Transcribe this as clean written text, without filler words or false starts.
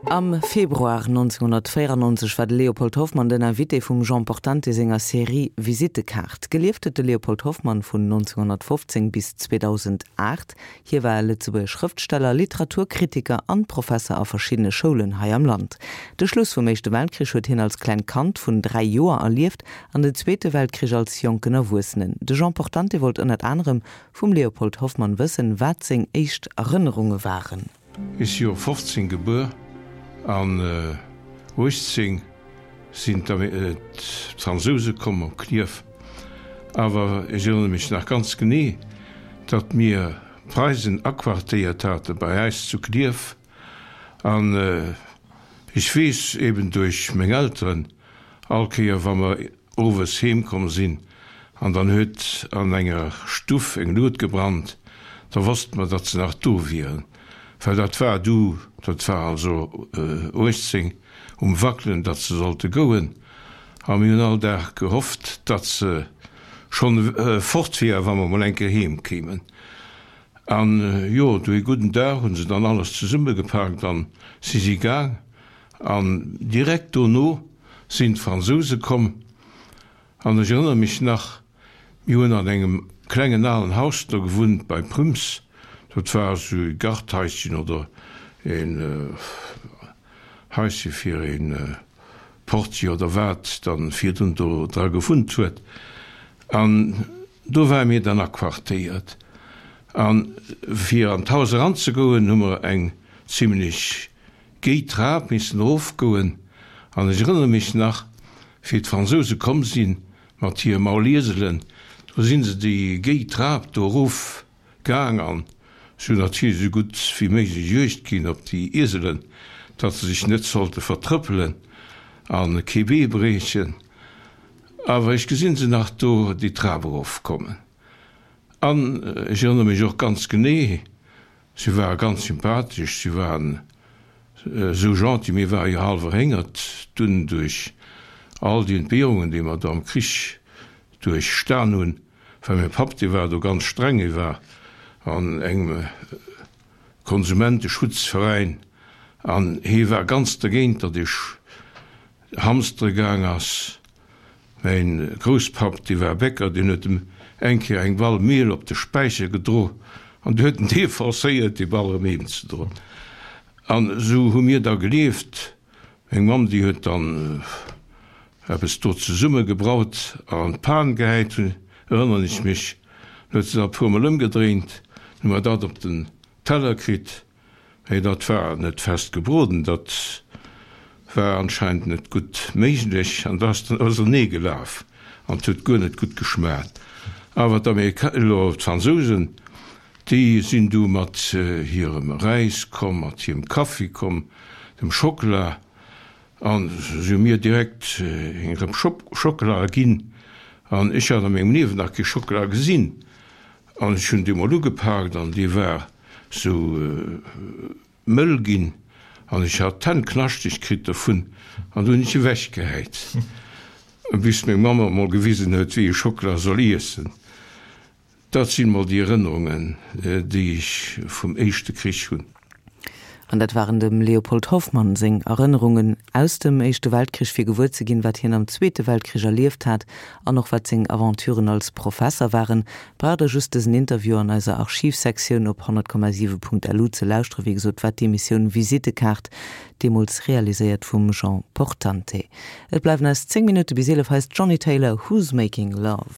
Am Februar 1994 war de Léopold Hoffmann den Invité vum Jean Portante senger Serie Visittekaart. Gelieft huet de Léopold Hoffmann vun 1915 bis 2008. Hie war e Lëtzebuerger Schrëftsteller, Literaturkritiker an Professer a verschiddene Schoulen hei am Land. De Schluss vum Éischte Weltkrich huet hien als klengt Kand vun 3 Joer erlieft an den Zweete Weltkrich als jonken Erwuessenen. De Jean Portante wollt ënnert anerem vum Léopold Hoffmann wëssen, wat seng éischt Erënnerunge waren. Ech si jo 15 gebuer an 18 sinn d'Fransouse komm op Klierf. Awer ech erënnere mech nach ganz genee, datt mir d'Preisen aquartéiert hate bei äis zu Klierf. An ech weess eben duerch meng Elteren, all Kéier wa mer owes heem komm sinn an dann huet an enger Stuff eng Luut gebrannt, da wosste mer, datt se nach do wieren, well dat war du, dat war also 18 um Wackelen, datt se sollte gouen a mir hunn all Dag gehofft, datt se schonn fort wier, wa mer mol eng Kéier heem kéimen. An jo, du ee gudden Dag hu se dann alles zesummegepaakt an si si gaang. An direkt dono sinn d'Fransouse komm. An ech erënnere mech nach, mir hunn an engem klengen alen Haus do gewunnt bei Prüms. Dat war esou e Garthaischen oder een Haische fir ee Portier oder wat dann virdrun do dra gewunnt huet. An do ware mir dann aquartéiert. A fir an d'Haus eranzegoen, hu mer eng zimlech Géi d'Trap missen erofgoen, an ech erënnere mech nach, wéi d'Fransouse komm si mat hire Maulieselen, do si se déi géi Trap do erof gaang an si hunn natierlech esou gutt wéi méiglech Juegd ginn op déi Ieselen, datt se sech net sollte vertrëppelen a kee Bee briechen. Awer ech gesinn se nach do déi Trap erofkommen. An ech erënnere mech och ganz genee, Si ware ganz sympathesch, si waren esou gentil. Mir ware jo hallef erhéngert dunn duerch all déi Entbehrungen, déi mer do am Krich duerchstan hunn, well mäi Papp, dee war do ganz streng, hie war an engem Konsumenteschutzveräin an hie war ganz dergéint, datt ech hamstere gaang ass. Mäin Grousspapp, dee war Bäcker, deen huet em eng Kéier eng Ball Miel op de Späicher gedro an du huet en dee forcéiert, déi Ball erëm heem ze droen. An esou hu mir da gelieft. Meng Mamm, déi huet dann eppes do zesumme gebraut an an d'Pan gehäit, erënneren ech mech. Dann huet se dat e puermol ëmgedréint, dann hu mer dat op den Teller kritt. Mee dat war net fest gebroden, dat war anscheinend net gutt méiglech an dat ass dann ausernee gelaf an et huet guer net gutt geschmaacht. Awer d'Amerika, elo d'Fransousen, déi sinn du mat hirem Räis komm, mat hirem Kaffi komm, dem Schockela an si hu mir direkt eng Rëpp Schockela ginn an ech hat a mengem Liewen nach kee Schockela gesinn an ech hunn dee mol ugepaakt an dee war sou mëll ginn an ech hat d'Hänn knaschteg kritt dovun an du hunn ech ewech gehäit, bis meng Mamm mer mol gewisen huet, wéi ee Schockela soll iessen. Dat sinn mol déi Erënnerungen, déi ech vum éischte Krich hunn. An dat waren dem Léopold Hoffmann seng Erënnerungen aus dem Éischte Weltkrich, fir gewuer ze ginn, wat hien am Zweete Weltkrich erlieft hat an och wat seng Aventuren als Professer waren. Braucht der just dësen Interview an eiser Archivsektioun op 100,7.lu ze lauschteren. Wéi gesot war d'Emissioun Visittekaart deemools realiséiert vum Jean Portante. Et bleiwen eis 10 Minutte bis 11. Hei ass d'Johnny Taylor, Who's Making Love?